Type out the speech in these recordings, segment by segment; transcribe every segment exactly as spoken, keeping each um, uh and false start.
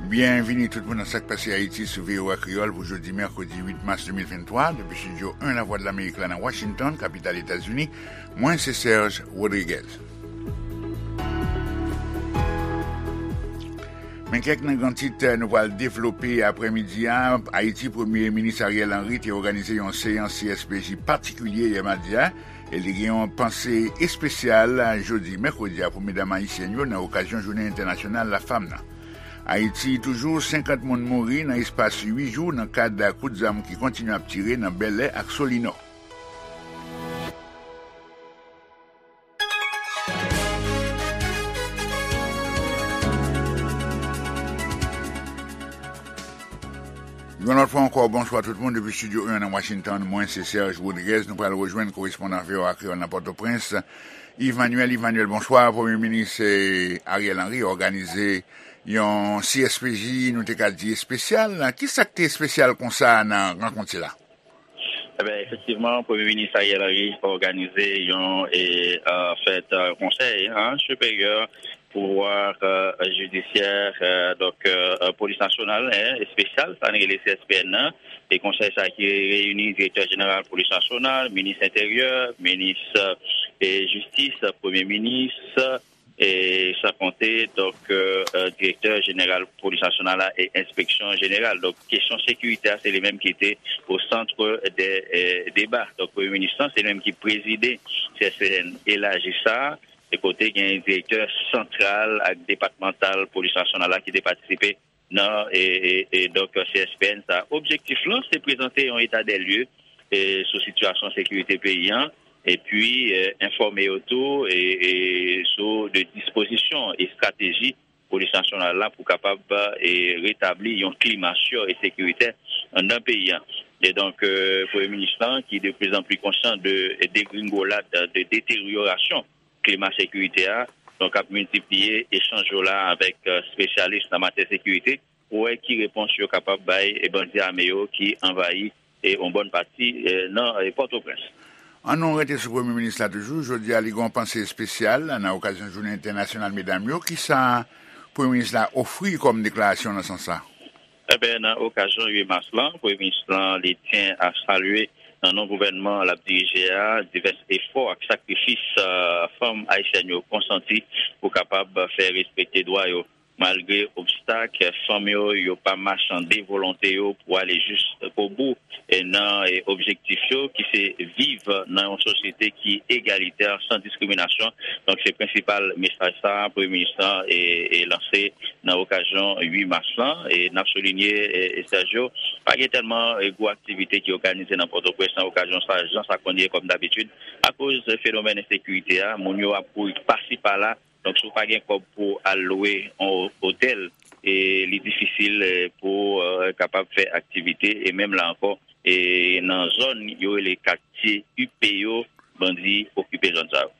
Byenvini tout moun nan Sa k Pase Ayiti sou V O A Kreyòl pou jodi mèkredi uit mas de mil venntwa, depi estidyo en Lavwadlamerik la nan Washington, kapital Etazini. Mwen se Serge Rodriguez. Men kèk nan gran tit nou pral devlope aprèmidi a. Ayiti, Premye Minis Ariel Henry te òganize yon seyans C S P J patikilye yè madi a, e li gen yon panse espesyal jodi mèkredi a pou medam ayisyèn yo nan okazyon Jounen Entènasyonal Lafanm nan. Ayiti, toujou senkant moun mouri nan espas uit jou nan kad kout zam ki kontinye ap tire nan Bèlè ak Solinò. Yon lòt fwa ankò, bonswa tout moun depi estidyo en nan Washington. Mwen se Serge Rodriguez. Nou pral rejwenn korespondan V O A Kreyòl nan Pòtoprens, Yves Manuel. Yves Manuel, bonswa. Premye Minis, eh, Ariel Henry òganize yon C S P J, nou te ka di espesyal. Kisa k te espesyal konsa nan rankont sila? Eben, efektivman, Premye Minis Ariel Henry òganize yon, e, e, fèt, e, konsèy, en, siperyè pouvwa, e, jidisyè, e, donk, e, e, polis nasyonal, en, espesyal, sa n rele C S P N nan, e konsèy sa ki reyini direktè jeneral polis nasyonal, minis enteryè, minis, e, jistis, premye minis, e san konte, donk, e, e, direktè jeneral polis nasyonal la e enspeksyon jeneral. Donk, kesyon sekirite a, se li menm ki te o sant de, e, deba. Donk, premye minis lan, se li menm ki prezide C S P N elaji sa a, e kote gen direktè santral ak depatmantal polis nasyonal la ki te patisipe nan, e, e, e, donk, C S P N sa. Objektif lan, se prezante yon eta dè lye, e, sou sitiyasyon sekirite peyi an, epi, e, enfòme yo tou, e, e, sou de dispozisyon e estrateji polis nasyonal la pou kapab, e, retabli yon klima si e sekiritè anndan peyi an. E donk, e, Premye Minis lan, ki de pli an pli konsyan de degringolad, de deteryorasyon klima sekirite a, donk ap miltipliye echanj yo la avèk, e, espesyalis nan matyè sekirite pou wè ki repons yo kapab bay, e, bandi ame yo ki anvayi, e, yon bòn pati, e, nan, e, Pòtoprens. An nou rete sou Premye Minis la toujou. Jodi a, li gen yon panse espesyal nan okazyon Jounen Entènasyonal Medam yo. Kisa Premye Minis la ofri kòm deklarasyon nan sans sa? Eben, nan okazyon uit mas lan, Premye Minis lan, li tyen a salye nan non gouvènman l ap dirije a, divès efò ak sakrifis, e, fanm ayisyèn yo konsanti pou kapab fè respekte dwa yo. Malgre obstak, fanm yo, yo pa machande volonte yo pou ale jiskobou, e, nan, e, objektif yo, ki se viv nan yon sosyete ki egalitè, san diskriminasyon. Donk, se prensipal mesaj sa a, Premye Minis lan, e, e, lanse nan okazyon uit mas lan. E n ap soulinye, e, e, Sergio, pa gen tèlman, e, gwo aktivite ki òganize nan Pòtoprens nan okazyon sa, jan sa konn ye kòm dabitid. Akoz fenomèn ensekirite a, moun yo ap kouri pasi pala. Donk, si w pa gen kòb pou w al lwe yon otèl, e li difisil, e, pou w, e, kapab fè aktivite. E menm la ankò, e nan zòn yo rele katye ipe yo, bandi okipe zòn sa yo.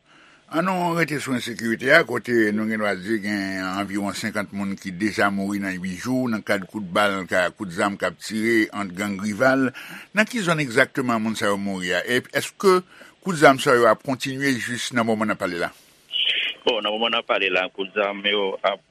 An nou rete sou ensekirite a, kote nou gen dwa di gen anviwon senkant moun ki deja mouri nan uit jou nan kad kout bal, ka, kout zam k ap tire ant gang rival. Nan ki zòn egzakteman moun sa yo mouri a? E èske kout zam sa yo ap kontinye jis nan moman n ap pale la? Bon, nan moman n ap pale la, kout zam yo ap,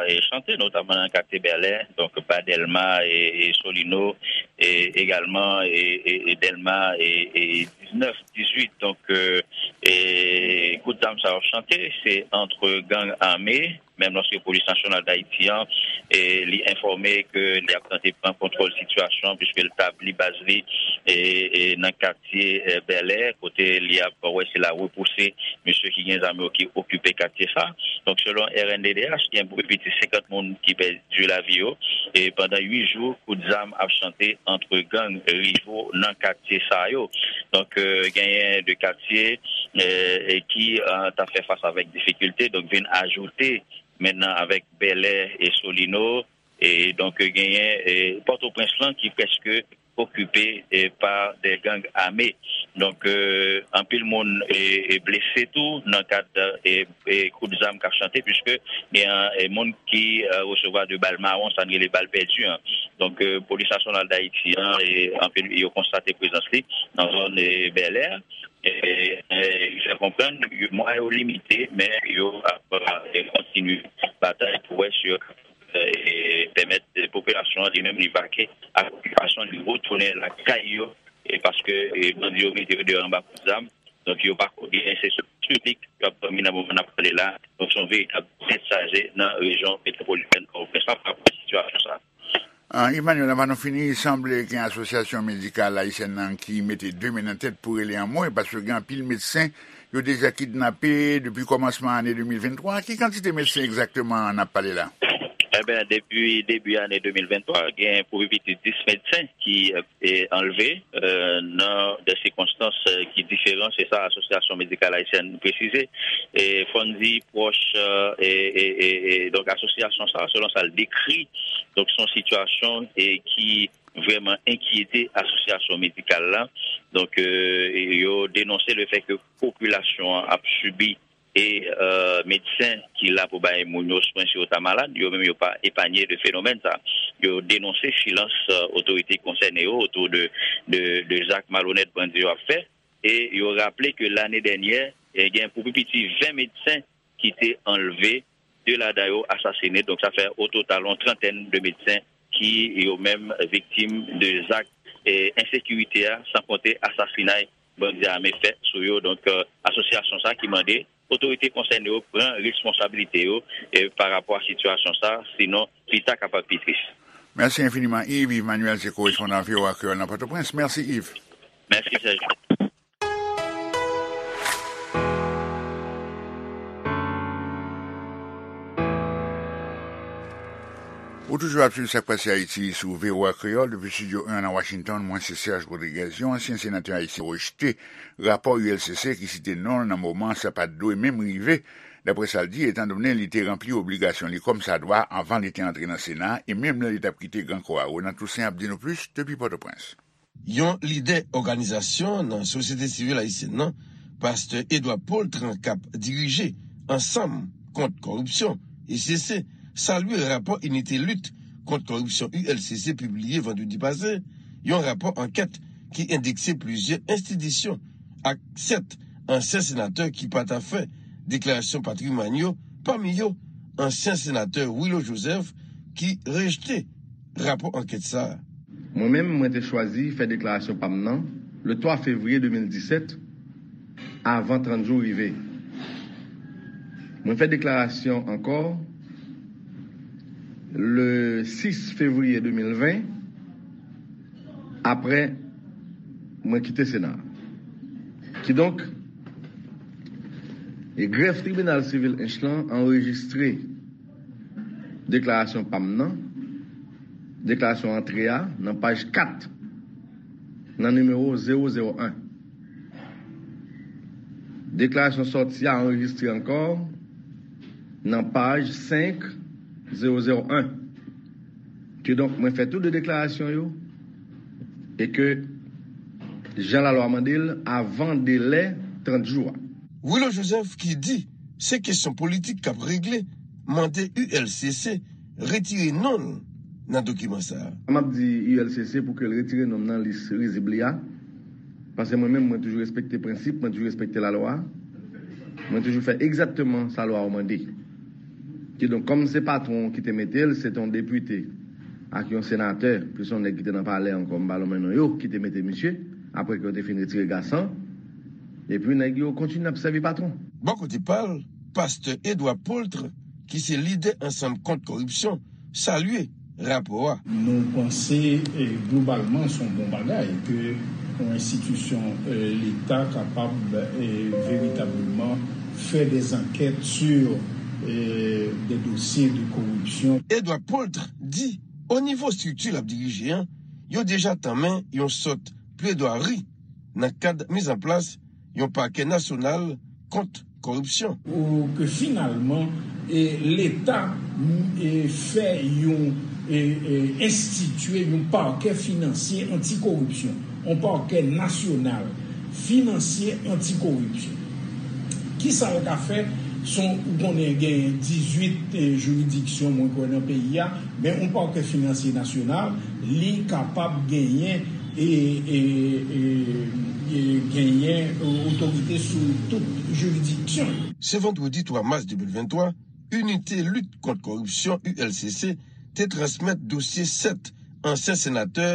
e, chante, notaman nan katye Bèlè, donk, ba Dèlma e, e Solino, e egalman, e, e, e Dèlma, e, e diznèf, dizuit. Donk, e, e kout zam sa yo ap chante, se ant gang ame, menm lòske Polis Nasyonal Dayiti an, e, li enfòme ke li ap tante pran kontwòl sitiyasyon an, piske l tabli baz li, e, e nan katye, e, Bèlè, kote li ap wè si l a repouse mesye ki gen zam yo ki okipe katye sa. Donk, selon R N D D H, gen pi piti senkant moun ki pèdi lavi yo, e pandan uit jou, kout zam ap chante ant gang rivo nan katye sa yo. Donk, e, genyen de katye, e, e ki, e, t ap fè fas avèk difikilte, donk vin ajoute mentnan avèk Bèlè e Solino, e donk genyen, e, Pòtoprens lan ki prèske okipe, e, pa de gang ame. Donk, e, anpil moun, e, e, blese tou nan kad, e, e, kout zam k ap chante, piske gen, e, moun ki, e, resevwa de bal mawon, sa n rele bal pèdi an. Donk, e, Polis Nasyonal Dayiti an, e, anpil, yo konstate prezans li nan zòn, e, Bèlè. E, e, li fè konprann, yo, mwayen yo limite, men yo ap, e, kontinye batay pou wè si yo kapab, e, e, pèmèt popilasyon an li menm li vake ak okipasyon, li retounen lakay yo, e paske, e, bandi yo mete yo deyò anba kout zam. Donk, yo pa ko-, gen enseksyon piblik, yo ap dòmi nan moman n ap pale la. Donk, se yon veritab tèt chaje nan rejyon metwopolitèn Pòtoprens la pa rapò ak sitiyasyon sa a. Ah, Emmanuel, anvan nou fini, sanble gen asosyasyon medikal ayisyèn nan ki mete de men nan tèt pou rele anmwe, paske gen anpil medsen yo deja kidnape depi kòmansman ane de mil venntwa. Ki kantite medsen egzakteman n ap pale la? Eben, depi debi ane de mil venntwa, gen pou pi piti dis medsen ki, e, anlve, e, nan de sikonstans, e, ki diferan, se sa Asosyasyon Medikal Ayisyèn presize. E, fò n di pwòch, e, e, e, e, e, donk, asosyasyon sa, selon sa l dekri, donk, se yon sitiyasyon, e, ki vrèman enkyete asosyasyon medikal la. Donk, e, yo denonse le fè ke popilasyon an ap sibi e, e, medsen ki la pou bay moun yo swen si yo ta malad, yo menm yo pa epanye de fenomèn sa. Yo denonse silans, e, otorite konsène yo otou de, de, de zak malonèt bandi yo ap fè. E yo raple ke lane dènyè, e, gen pou pi piti ven medsen ki te anlve, de ladan yo asasine. Donk, sa fè o total yon trantèn de medsen ki yo menm viktim de zak, e, ensekirite a, san konte asasinay bandi ame fè sou yo. Donk, e, asosyasyon sa ki mande otorite konsène yo pran responsabilite yo, e, pa rapò a sitiyasyon sa, sinon pita kapab pi tris. Mèsi enfiniman, Yves. Yves Manuel se korespondan V O A Kreyòl nan Pòtoprens. Mèsi, Yves. Mèsi, Serge. Ou toujou ap swiv Sa k Pase Ayiti sou V O A Kreyòl depi Estidyo en nan Washington. Mwen se Serge Rodriguez. Yon ansyen senatè ayisyen rejte rapò U L C C ki site non l nan moman sa pa t dwe menm rive, daprè sa l di, etandone li te ranpli obligasyon li kòmsadwa anvan li te antre nan Sena e menm lè li t ap kite Gran Kò a. Ronan Toussaint ap di nou plis depi Pòtoprens. Yon lidè òganizasyon nan sosyete sivil ayisyèn nan, pastè Edouard Paultre, k ap dirije Ansanm Kont Kòripsyon, E C C, salye rapò Inite Lit Kont Kòripsyon, U L C C, pibliye vandredi pase, yon rapò ankèt ki endekse plizyè enstitisyon ak sèt ansyen senatè ki pa ta fè deklarasyon patrimwàn yo, pami yo ansyen senatè Willo Joseph, ki rejte rapò ankèt sa a. Mwen menm, mwen te chwazi fè deklarasyon pa m nan le twa fevriye de mil disèt, avan trant jou rive. Mwen fè deklarasyon ankò le sis fevriye de mil ven, apre mwen kite Sena a. Kidonk, e grèf tribinal sivil Ench lan anrejistre deklarasyon pa m nan, deklarasyon antre a, nan paj kat, nan nimewo zewo zewo en. Deklarasyon sòti a anrejistre ankò nan paj senk zewo zewo en. Kidonk, mwen fè tou de deklarasyon yo e ke jan lalwa mande l avan delè trant jou a. Willo Joseph, ki di se kesyon politik k ap regle, mande U L C C retire non l nan dokiman sa a. M ap di U L C C pou ke l retire non m nan lis rizib li a, paske mwen menm, mwen toujou respekte prensip, mwen toujou respekte lalwa, mwen toujou fè egzakteman sa lwa a mande. Kidonk, kòm se patwon ki te mete l, se te yon depite ak yon senatè, plis yon nèg ki te nan palè ankò, m pa lonmen non yo, ki te mete misye, apre ke yo te fin retire Gasan, epi nèg yo kontinye ap sèvi patwon. Bò kote pa l, pastè Edouard Paultre, ki se lidè Ansanm Kont Kòripsyon, salye rapò a. Nou panse, eh, globalman, se yon bon bagay ke yon enstitisyon, eh, Leta kapab, eh, veritableman fè des enquêtes sur, eh, des dossiers de corruption. Edouard Paultre di, o nivo estrikti l ap dirije an, yo deja tanmen yon sòt pledwari nan kad mizanplas yon pakè nasyonal kont kòripsyon. Ou ke finalman, e, Leta, m, e, fè yon, e, e, enstitye yon pakè finansye antikoripsyon, yon pakè nasyonal finansye antikoripsyon. Kisa l ka fè? Son, ou konnen gen dizuit, e, jiridiksyon, mwen kwè, nan peyi a, men yon pakè finansye nasyonal, li kapab genyen e, e, e, e genyen, e, otorite sou tout jiridiksyon yo. Se vandredi twa mas de mil venntwa, Inite Lit Kont Kòripsyon, U L C C, te transmèt dosye sèt ansyen senatè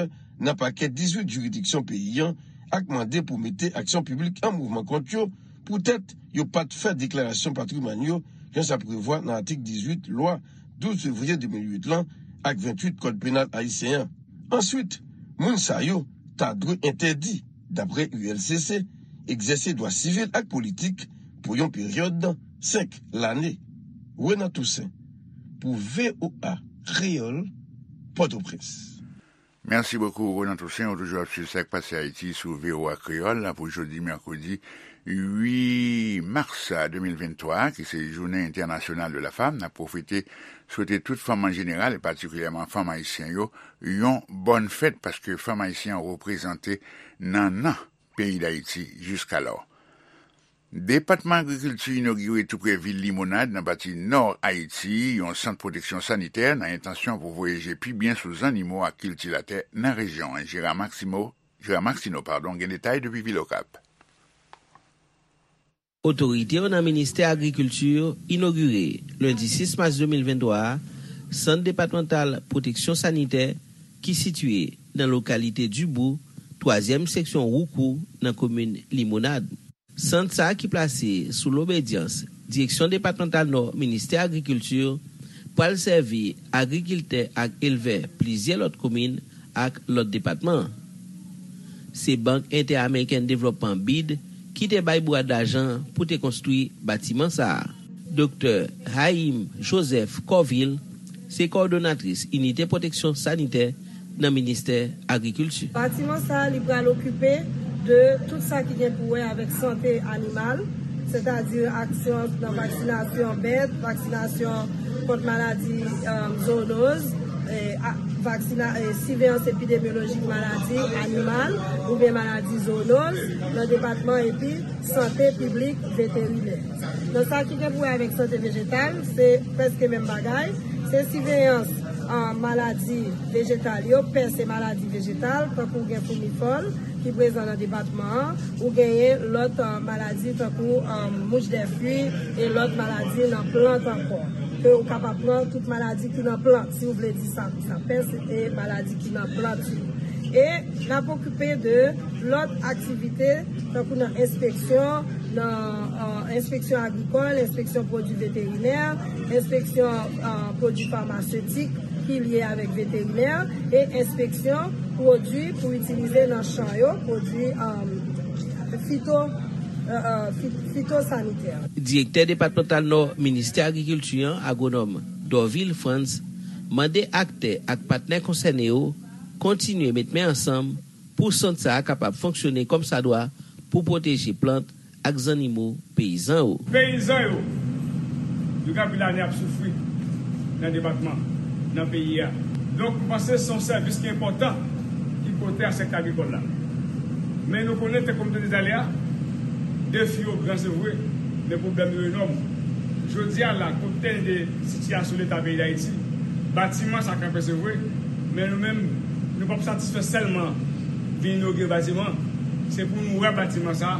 nan pakè dizuit jiridiksyon peyi a ak mande pou mete aksyon piblik an mouvman kont yo poutèt yo pa t fè deklarasyon patrimwàn yo jan sa prevwa nan atik dizuit lwa douz fevriye de mil uit lan ak ventuit Kòd Penal ayisyen an. Answit, moun sa yo ta dwe entèdi, dapre U L C C, egzèse dwa sivil ak politik pou yon peryòd senk lane. Renan Toussaint, pou V O A Kreyòl, Pòtoprens. Mèsi bokou, Renan Toussaint. Ou toujou ap swiv Sa k Pase Ayiti sou V O A Kreyòl pou jodi mèkredi uit mas de mil venntwa, ki se Jounen Entènasyonal de la Fanm. N ap pwofite swete tout fanm an jeneral, e patikilyèman fanm ayisyen yo, yon bòn fèt, paske fanm ayisyen an reprezante nan nan peyi Dayiti jiskalò. Depatman Agrikilti inogire toupre vil Limonad, nan pati nò Ayiti, yon sant pwoteksyon sanitè nan entansyon pou voye je pi byen sou zannimo ak kiltivatè nan rejyon an. Jera Maximo, Jera Maxino, padon, gen detay depi Vil Okap. Otorite yo nan Ministè Agrikilti inogire, lendi sis mas de mil venntwa a, Sant Depatmantal Pwoteksyon Sanitè ki sitiye nan lokalite Dibou, twazyèm seksyon Woukou, nan komin Limonad. Sant sa a ki plase sou lobedyans Direksyon Depatmantal Nò Ministè Agrikilti, pral sèvi agrikiltè ak elvè plizyè lòt komin ak lòt depatman. Se Bank Entè-Amerikèn Devlòpman, bid, ki te bay bwat lajan pou te konstwi batiman sa a. Doktè Haïm Joseph Corville se kowòdonatris Inite Pwoteksyon Sanitè nan Ministè Agrikilti. Batiman sa a, li pral okipe de tout sa ki gen pou wè avèk sante animal, sètadi aksyon nan vaksinasyon bèt, vaksinasyon kont maladi, um, zoonoz, e, a, vaksina-, e, siveyans epidemyolojik maladi animal oubyen maladi zoonoz nan depatman, epi sante piblik veterinè. Nan sa ki gen pou wè avèk sante vejetal, se prèske menm bagay. Se siveyans, a, maladi vejetal yo, pès e maladi vejetal, tankou gen foumifòl ki prezan nan depatman an, ou genyen lòt, a, maladi tankou, a, mouch dè fwi e lòt maladi nan plant ankò. Ke ou kapab pran tout maladi ki nan plant, si w vle di sa konsa, pès e maladi ki nan plant yo. E n ap okipe de lòt aktivite, tankou nan enspeksyon, nan, a, enspeksyon agrikòl, enspeksyon pwodui veterinè, enspeksyon, a, pwodui famasetik ki lye avèk veterinè, e enspeksyon pwodui pou itilize nan chan yo, pwodui, a, fito, a, a, fi-, fitosanitè. Direktè depatmantal Nò Ministè Agrikilti an, agwonòm Dorvil Frantz, mande aktè ak patnè konsène yo kontinye met men ansanm pou sant sa a kapab fonksyone kòmsadwa pou pwoteje plant ak zannimo peyizan yo. Peyizan yo, yo gen anpil ane ap soufri nan depatman, nan peyi a. Donk, m panse se yon sèvis ki enpòtan ki pote a sektè agrikòl la. Men nou konnen, tankou m te di talè a, defi yo gran, se vre, men pwoblèm yo enòm. Jodi a la, konptan de sitiyasyon leta peyi Dayiti, batiman sa kanpe, se vre, men nou menm, nou p ap satisfè sèlman vin inogire batiman. Se pou nou wè batiman sa,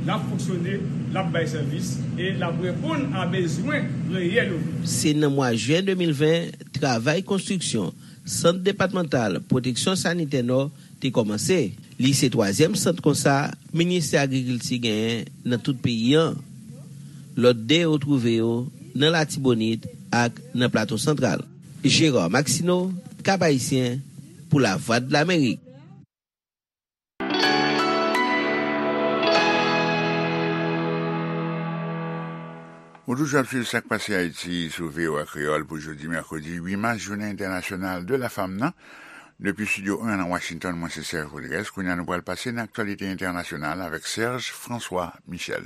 l ap fonksyone, l ap bay sèvis e l ap reponn a bezwen reyèl yo. Se nan mwa jen de mil ven, travay konstriksyon Sant Depatmantal Pwoteksyon Sanitè Nò te kòmanse. Li se twazyèm sant konsa Ministè Agrikilti genyen nan tout peyi an. Lòt de yo twouve yo nan Latibonit ak nan Plato Santral. Gérard Maxineau, Cap-Haïtien, pou Lavwadlamerik. Ou toujou ap swiv Sa k Pase Ayiti sou V O A Kreyòl pou jodi mèkredi uit mas, Jounen Entènasyonal de la Fanm nan. Depi Estidyo en nan Washington, mwen se Serge Rodriguez. Kounye a nou pral pase nan aktyalite entènasyonal avèk Serge François Michel.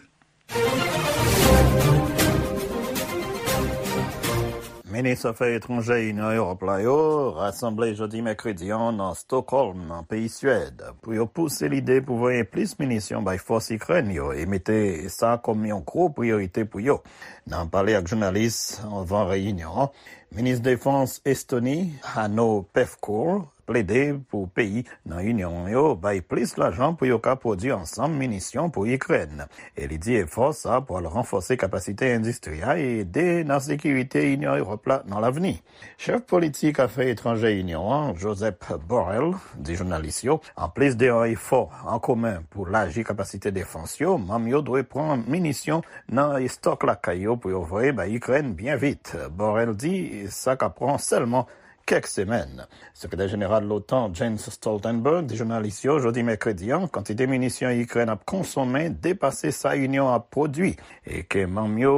Minis afè etranjè Inyon Ewòp la yo rasanble jodi mèkredi an nan Stockholm, nan peyi Swèd, pou yo pouse lide pou voye plis minisyon bay fòs Ikrèn yo e mete sa kòm yon gwo priyorite pou yo. Nan pale ak jounalis anvan reyinyon an, Minis Defans Estoni, Hanno Pevkur, plede pou peyi nan Inyon an yo bay plis lajan pou yo ka pwodui ansanm minisyon pou Ikrèn. E li di efò sa a pral ranfòse kapasite endistri a e ede nan sekirite Inyon Ewòp la nan lavni. Chèf politik afè etranjè Inyon an, Josep Borrell, di jounalis yo, anplis de yon efò an komen pou laji kapasite defans yo, manm yo dwe pran minisyon nan estòk lakay yo pou yo voye bay Ikrèn byen vit. Borrell di sa ka pran sèlman kèk semèn. Sekretè jeneral l'OTAN, Jens Stoltenberg, di jounalis yo jodi mèkredi an, kantite minisyon Ikrèn ap konsome depase sa Inyon an ap pwodui e ke manm yo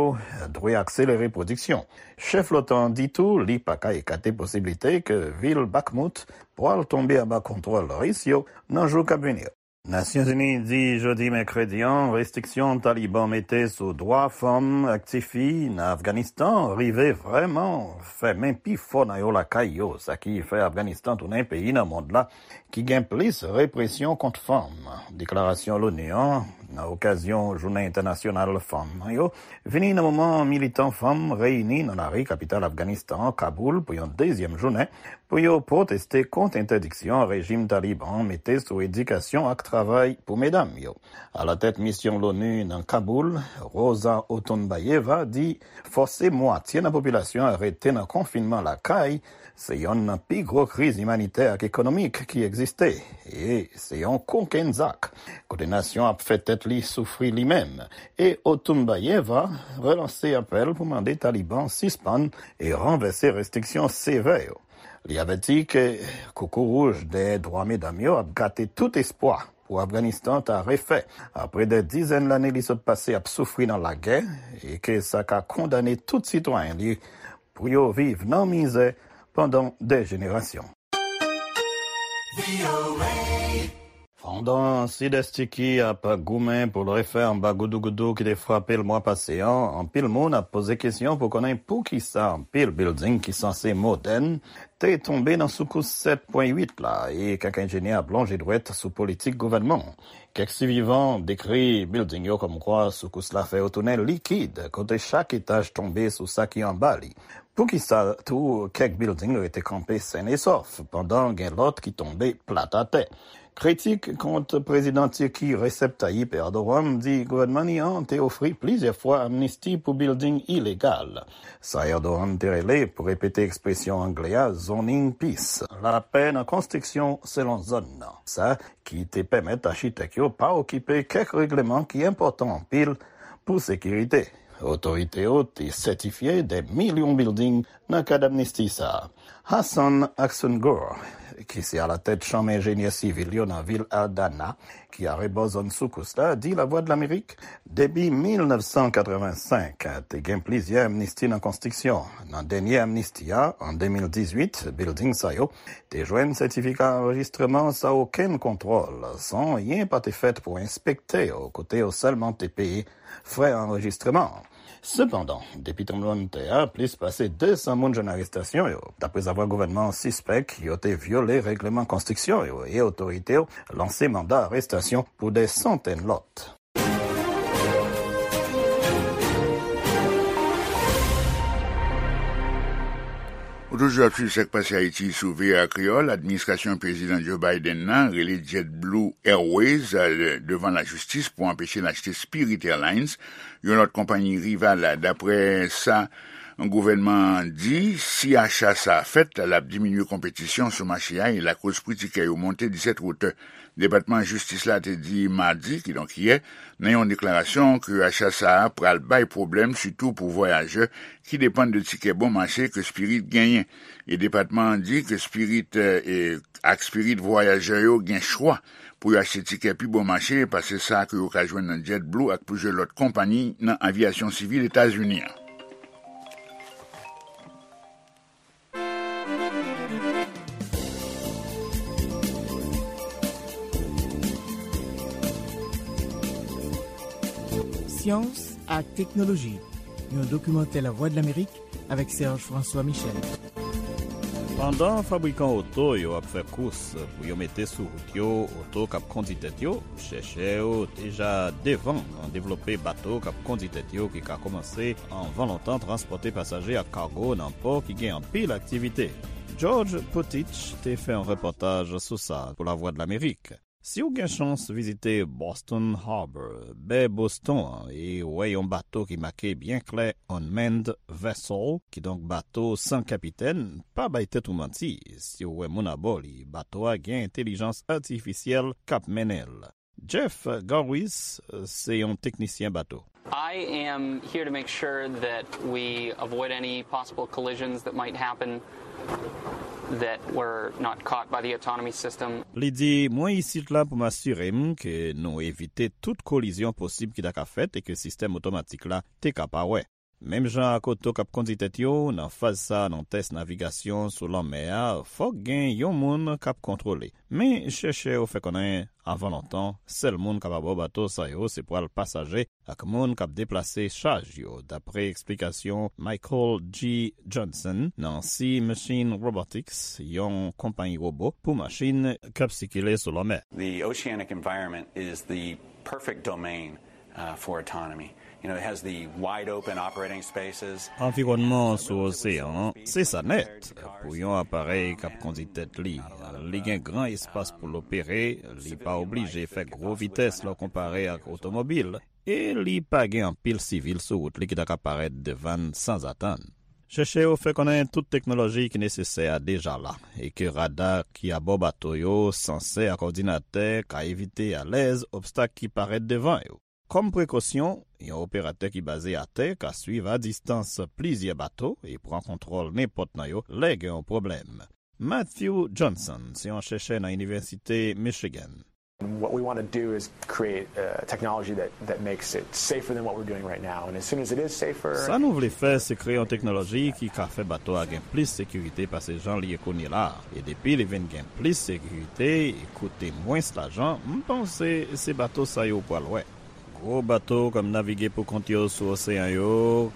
dwe akselere pwodiksyon. Chèf l'OTAN an di tou li pa ka ekate posiblite ke vil Bakhmut pral tonbe anba kontwòl Ris yo nan jou k ap vini yo. Nasyonzini di jodi mèkredi an restriksyon Taliban mete sou dwa fanm ak tifi nan Afganistan rive vrèman fèmen pi fò nan yo lakay yo, sa ki fè Afganistan tounen peyi nan mond la ki gen plis represyon kont fanm. Deklarasyon l'ONU an nan okazyon Jounen Entènasyonal Fanm nan yo vini nan moman militan fanm reyini nan lari kapital Afganistan an, Kaboul, pou yon dezyèm jounen pou yo pwoteste kont entèdiksyon rejim Taliban an mete sou edikasyon ak travay pou medam yo. Alatèt misyon l'ONU nan Kaboul, Rosa Otunbayeva, di fòse mwatye nan popilasyon an rete nan konfinman lakay se yonn nan pi gwo kriz imanitè ak ekonomik ki egziste, e se yon kokenn zak, kote nasyon ap fè tèt li soufri li menm. E Otunbayeva relanse apèl pou mande Taliban sispann e ranvèse restriksyon sevè yo. Li avèti ke koukouwouj dèyè dwa medam yo ap gate tout espwa pou Afganistan ta refè apre dè dizèn lane li sot pase ap soufri nan lagè, e ke sa ka kondane tout sitwayen li pou yo viv nan mizè pandan dè jenerasyon. Pandan Sidès Tiki ap goumen pou l refè anba goudougoudou ki te frape l mwa pase an, anpil moun ap poze kesyon pou konnen poukisa anpil bilding ki sanse modèn te tonbe nan soukous sèt pwen uit la, e kèk enjenyè ap lonje dwèt sou politik gouvènman. Kèk sivivan dekri bilding yo kòmkwa soukous la fè yo tounen likid, kote chak etaj tonbe sou sa ki anba li. Poukisa tou kèk bilding rete kanpe sèn e sòf, pandan gen lòt ki tonbe plat atè? Kritik kont prezidan Tiki Recep Tayyip Erdogan di gouvènman li an te ofri plizyè fwa amnisti pou bilding ilegal. Sa Erdogan te rele, pou repete ekspresyon angle a, zoning peace, lapè nan konstriksyon selon zòn nan. Sa ki te pèmèt achitèk yo pa okipe kèk regleman ki enpòtan anpil pou sekirite. Otorite yo te sètifye dè milyon bilding nan kad amnisti sa a. Hassan Aksungur, ki se alatèt chanm enjenyè sivil yo nan vil Adana, ki arebò zòn soukous la, di Lavwadlamerik, depi mil nèf san katrevensenk, te gen plizyè amnisti nan konstriksyon. Nan dènye amnisti a, an de mil dizuit, bilding sa yo te jwenn sètifika anrejistreman san okenn kontwòl, san anyen pa te fèt pou enspekte yo, kote yo sèlman te peye frè anrejistreman an. Sepandan, depi tranblemanntè a, plis pase de san moun jwenn arestasyon yo, daprezavwa gouvènman an sispèk yo te vyole règleman konstriksyon yo e otorite yo lanse manda arestasyon pou dè santèn lòt. Ou toujou ap swiv Sa k Pase Ayiti sou V O A Kreyòl. Administrasyon Prezidan Joe Biden nan rele JetBlue Airways, eh, devan lajistis pou anpeche l achte Spirit Airlines, yon lòt konpayi rival. Daprè sa gouvènman an di, si acha sa a fèt, l ap diminye konpetisyon sou mache a e lakoz pri tikè yo monte disèt wout. Depatman Jistis la te di madi, kidonk yè, nan yon deklarasyon, ke acha sa a pral bay pwoblèm, sitou pou vwayajè ki depann de tikè bon mache ke Spirit genyen. E depatman an di ke Spirit, eh, e ak Spirit, vwayajè yo gen chwa pou yo achte tikè pi bon mache pase sa ke yo ka jwenn nan JetBlue ak plizyè lòt konpayi nan aviyasyon sivil Etazini an. Syans ak teknoloji, yon dokimantè Lavwadlamerik avèk Serge François Michel. Pandan fabrikan oto yo ap fè kous pou yo mete sou wout yo oto k ap kondi tèt yo, chèchè yo deja devan nan devlope bato k ap kondi tèt yo ki ka kòmanse anvan lontan transpòte pasaje ak kago nan pò ki gen anpil aktivite. George Putich te fè yon repòtaj sou sa pou Lavwadlamerik. Si w gen chans vizite Boston Harbor, bè Boston an, e wè yon bato ki make byen klè Unmanned Vessel, kidonk bato san kapitèn, pa bay tèt ou manti. Si w wè moun abò li, bato a gen entèlijans atifisyèl k ap mennen l. Jeff Garwis se yon teknisyen bato. I am here to make sure that we avoid any possible collisions that might happen that were not caught by the autonomy system. Li di, mwen isit la pou m asire m ke nou evite tout kolizyon posib ki ta ka fèt e ke sistèm otomatik la te ka pa wè. Menm jan ak oto k ap kondi tèt yo, nan faz sa a nan tès navigasyon sou lanmè a, fòk gen yon moun k ap kontwole. Men, chèchè yo fè konnen, anvan lontan, sèl moun k ap abò bato sa yo se pral pasaje ak moun k ap deplase chaj yo, dapre eksplikasyon Michael G. Johnson nan Sea Machine Robotics, yon konpayi wobo pou machin k ap sikile sou lanmè. The oceanic environment is the perfect domain uh, for autonomy. You know, it has the wide open operating spaces. Anviwònman sou oseyan an, se sa nèt. Pou yon aparèy k ap kondi tèt li, li gen gran espas pou l opere, li pa oblije fè gwo vitès lè w konpare ak otomobil, e li pa gen anpil sivil sou wout li ki ta ka parèt devan n sanzatann. Chèchè yo fè konnen tout teknoloji ki nesesè a deja la, e ke rada ki abò bato yo, sansè ak òdinatè ka evite alèz obstak ki parèt devan yo. Kòm prekosyon, yon operatè ki baze atè ka swiv a distans plizyè bato e pran kontwòl nenpòt nan yo lè gen yon pwoblèm. Matthew Johnson se yon chèchè nan Inivèsite Michigan. What we want to do is create uh, technology that, that makes it safer than what we're doing right now. And as soon as it is safer, Sa nou vle fè, se kreye yon teknoloji ki ka fè bato a gen plis sekirite pase jan li ye kounye la a. E depi li vin gen plis sekirite e koute mwens lajan, m panse se bato sa yo pral wè. Gwo bato k ap navige pou kont yo sou oseyan yo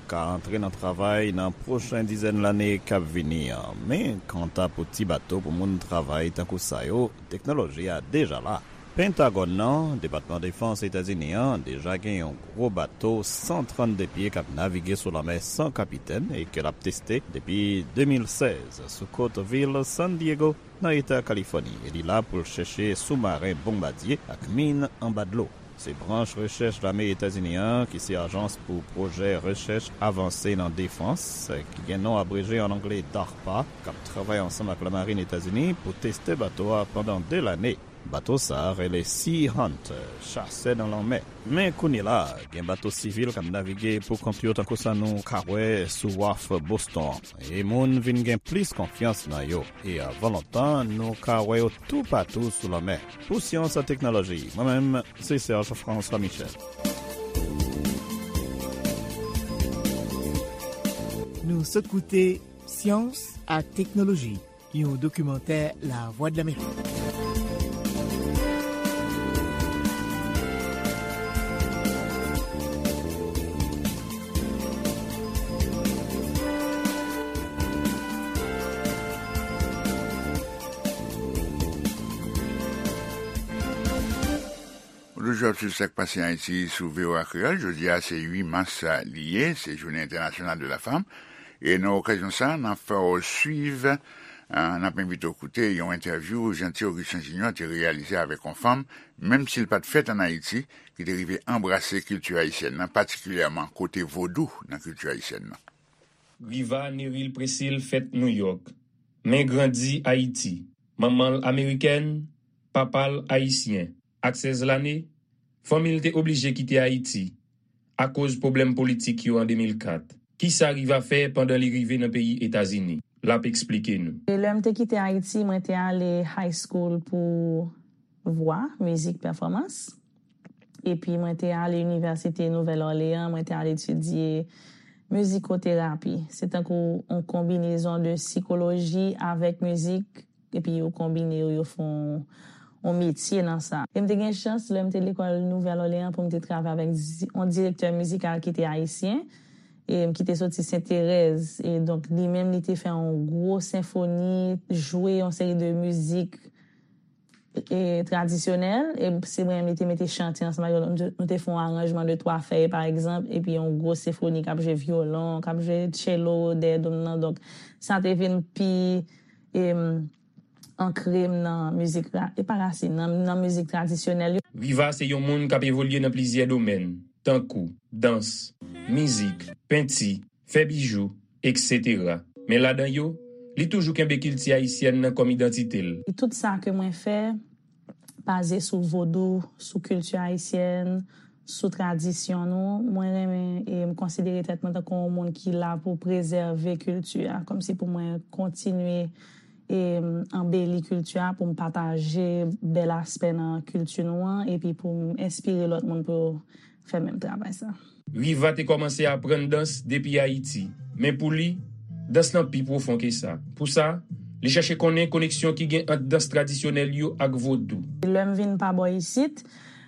ka antre nan travay nan pwochen dizèn lane k ap vini an. Men, kanta pou ti bato pou moun travay tankou sa yo, teknoloji a deja la. Pentagòn nan, Depatman Defans Etazini an, deja gen yon gwo bato san trannde pye k ap navige sou lanmè san kapitèn e ke l ap teste depi de mil sèz sou kot vil San Diego, nan eta Kalifòni, e li la pou l chèche soumaren bonbadye ak min anba dlo. Se branch rechèch lame Etazini an, ki se Ajans pou Pwojè Rechèch Avanse nan Defans, ki gen non abreje an angle DARPA, k ap travay ansanm ak lamarin Etazini pou teste bato a pandan de lane. Bato sa a rele Sea Hunter, chasè nan lanmè. Men kounye la a, gen bato sivil k ap navige pou kont yo tankou sa nou ka wè sou waf Boston an. E moun vin gen plis konfyans nan yo. E avan lontan, nou ka wè yo toupatou sou lanmè. Pou Syans ak Teknoloji, mwen menm, se Serge François Michel. Nou sot koute Syans ak Teknoloji, yon dokimantè Lavwadlamerik. Ou toujou ap swiv Sa k Pase Ayiti sou V O A Kreyòl. Jodi a, se uit mas li ye, se Jounen Entènasyonal de la Fanm. E nan okazyon sa, n ap fè w swiv, ah, n ap envite w koute yon entèvyou Jeanty Augustin Junior te reyalize avèk yon fanm, menm si l pa t fèt ann Ayiti, ki te rive anbrase kilti ayisyèn nan, patikilyèman kote vodou nan kilti ayisyèn nan. Riva Neril Presil fèt Nouyòk, men grandi Ayiti. Manman l amerikèn, papa l ayisyen. Ak sèz lane, fanmi l te oblije kite Ayiti akoz pwoblèm politik yo an de mil kat. Kisa Riva fè pandan li rive nan peyi Etazini? L ap eksplike nou. E lè m te kite Ayiti, mwen te ale high school pou vwa, mizik, pèfòmans. Epi mwen te ale Inivèsite Nouvèl Òleyan, mwen te al etidye mizikoterapi. Se tankou yon konbinezon de sikoloji avèk mizik, epi yo konbine yo, yo fè yon, yon metye nan sa. E m te gen chans, lè m te lekòl Nouvèl Òleyan, pou m te travay avèk di-, yon direktè mizikal ki te ayisyen. e, ki te soti Senterèz. E donk, li menm, li te fè yon gwo senfoni, jwe yon seri de mizik e, tradisyonèl, e se mwen menm li te mete chante ansanm ak yo. Nou te, nou te fè yon aranjman de twa fèy, pa egzanp, epi yon gwo senfoni k ap jwe vyolon, k ap jwe tchelo dèyè do m nan. Donk, sa te vin pi, em, ankre m nan mizik ra-, e pa rasin, nan, nan mizik tradisyonèl yo. Riva se yon moun k ap evolye nan plizyè domèn, tankou dans, mizik, penti, fè bijou, etsetera. Men ladan yo, li toujou kenbe kilti ayisyèn nan kòm idantite l. Tout sa ke mwen fè baze sou vodou, sou kilti ayisyèn, sou tradisyon nou. Mwen renmen e m konsidere tèt mwen tankou yon moun ki la pou prezève kilti a, kòmsi pou mwen kontinye e m anbeli kilti a, pou m pataje bèl aspè nan kilti nou an, epi pou m enspire lòt moun pou yo fè menm travay sa. Riva te kòmanse aprann dans depi Ayiti, men pou li, dans lan pi pwofon ke sa. Pou sa, li chèche konnen koneksyon ki gen ant dans tradisyonèl yo ak vodou. Lè m vin pa bò isit,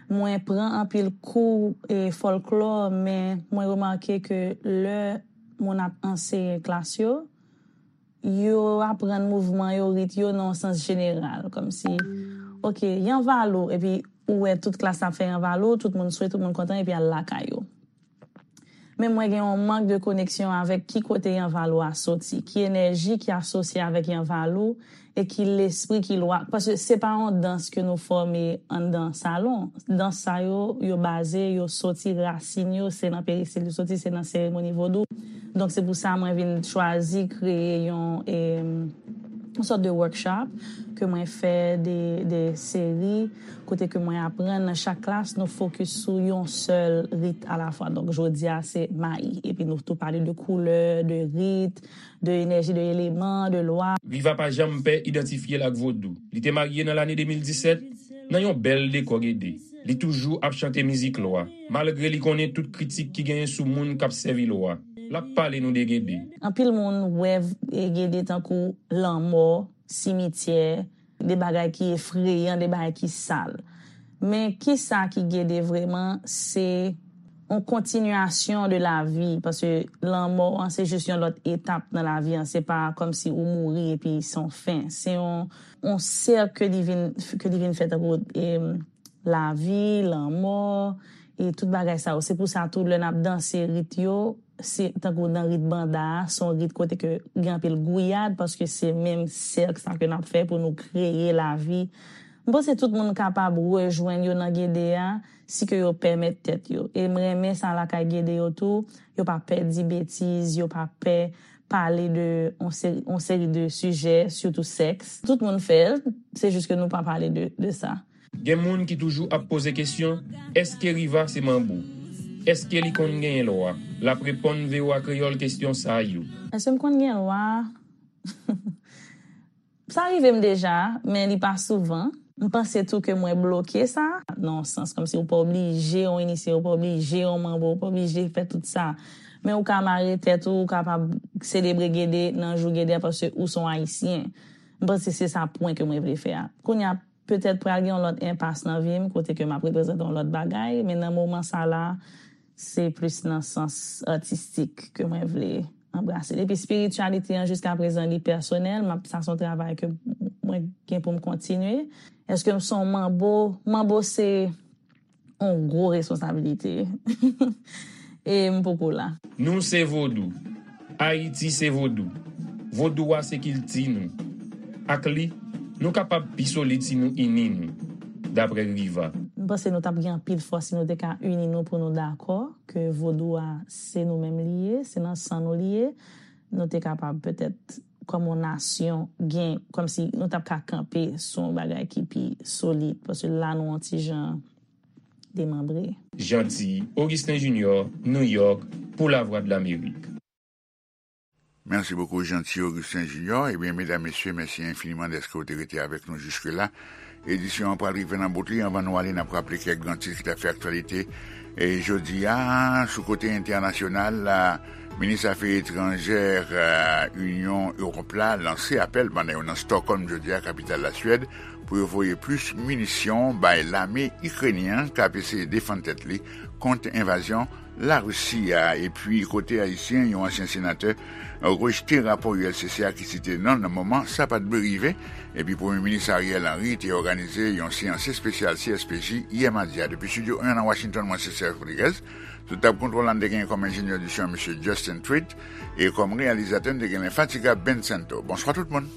mwen pran anpil kou e fòlklò, men mwen remake ke lè moun ap anseye klas yo, yo aprann mouvman yo, rit yo nan yon sans jeneral, kòmsi, oke, yanvalou, epi ou wè tout klas la ap fè yanvalou, tout moun swe, tout moun kontan, epi al lakay yo. Men mwen gen yon mank de koneksyon avèk ki kote yanvalou a soti, ki enèji ki asosye avèk yanvalou, e ki lespri, ki lwa. Paske se pa yon dans ke nou fòme anndan salon. Dans sa yo, yo baze, yo soti, rasin yo, se nan peristil yo soti, se nan seremoni vodou. Donk, se pou sa mwen vin chwazi kreye yon, em, yon sòt de workshop ke mwen fè de, de seri kote ke mwen aprann nan chak klas, nou fokis sou yon sèl rit alafwa. Donk, jodi a, se mayi. Epi nou tou pale de koulè, de rit, de enèji, de eleman, de lwa. Riva pa janm pè idantifye l ak vodou. Li te marye nan lane de mil disèt nan yon bèl dekò Gede. Li toujou ap chante mizik lwa, malgre li konnen tout kritik ki genyen sou moun k ap sèvi lwa. L ap pale nou de Gede. Anpil moun wè v-, e, Gede tankou lanmò, simityè, de bagay ki efreyan, de bagay ki sal. Men kisa ki Gede vrèman? Se yon kontinyasyon de lavi, paske lanmò an se jis yon lòt etap nan lavi an, se pa kòmsi ou mouri epi se yon fen. Se yon, yon sèk ke li vin, ke li vin fè tankou, em, lavi, lanmò, e tout bagay sa yo. Se pou sa tou, lè n ap danse rit yo, se tankou nan rit banda a, se yon rit kote ke gen anpil gouyad, paske se menm sèk sa ke n ap fè pou nou kreye lavi. M panse tout moun kapab rejwenn yo nan Gede a, si ke yo pèmèt tèt yo. E m renmen sa lakay Gede yo tou, yo pa pè di betiz, yo pa pè pale de yon seri, yon seri de sijè, sitou sèks. Tout moun fè l, se jis ke nou pa pale de, de sa. Gen moun ki toujou ap poze kesyon, èske Riva se manbo? Èske li konn genyen lwa? L ap reponn V O A Kreyòl kesyon sa yo. Èske m konn gen lwa? Sa rive m deja, men li pa souvan. M panse tou ke mwen bloke sa, nan yon sans, kòmsi ou pa oblije yon inisye, ou pa oblije yon manbo, ou pa oblije fè tout sa. Men ou ka mare tèt ou, ou kapab selebre Gede nan jou Gede a, paske ou se yon Ayisyen. M panse se sa pwen ke mwen vle fè a. Kounye a, petèt pral gen yon lòt enpas nan vi m, kote ke m ap reprezante yon lòt bagay, men nan moman sa la, se plis nan sans atistik ke mwen vle anbrase l. Epi espirityalite an, jiskaprezan, li pèsonèl, m ap, sa se yon travay ke mwen gen pou m kontinye. Èske m se yon manbo? Manbo se yon gwo responsabilite. E m poko la. Nou se vodou. Ayiti se vodou. Vodou a se kilti nou. Ak li, nou kapab pi solid si nou ini nou, dapre Riva. M panse nou t ap gen anpil fòs si nou te ka ini nou pou nou dakò ke vodou a se nou menm li ye, se nan san nou li ye. Nou te kapab petèt, kòm yon nasyon, gen, kòmsi nou t ap ka kanpe sou yon bagay ki pi solid, paske la nou yon ti jan demanbre. Jeanty Augustin Junior, New York, pou Lavwadlamerik. Merci beaucoup, Jeanty Augustin Junior. Ebyen, medam, mesye, mèsi enfiniman dèske w te rete avèk nou jiske la. Edisyon an pral rive nan bout li. Anvan nou ale, n ap raple kèk gran tit ki t ap fè aktyalite. E jodi a, sou kote entènasyonal la, minis afè etranjè, e, Inyon Ewòp la lanse apèl pandan yo nan Stockholm jodi a, kapital Laswèd, pou yo voye plis minisyon bay lame ikrenyen an k ap eseye defann tèt li kont envazyon Larisi a, epi kote ayisyen, yon ansyen senatè rejte rapò U L C C a ki site non l nan moman sa pa t dwe rive, epi Premye Minis Ariel Henry te òganize yon seyans espesyal C S P J yè madi a. Depi Estidyo en nan Washington, mwen se Serge Rodriguez. Sou tab kontwòl la, n te genyen kòm enjenyè di son, mesye Justin Tweed, e kòm reyalizatè, n te gen lenfatigab Ben Santo. Bonswa tout moun.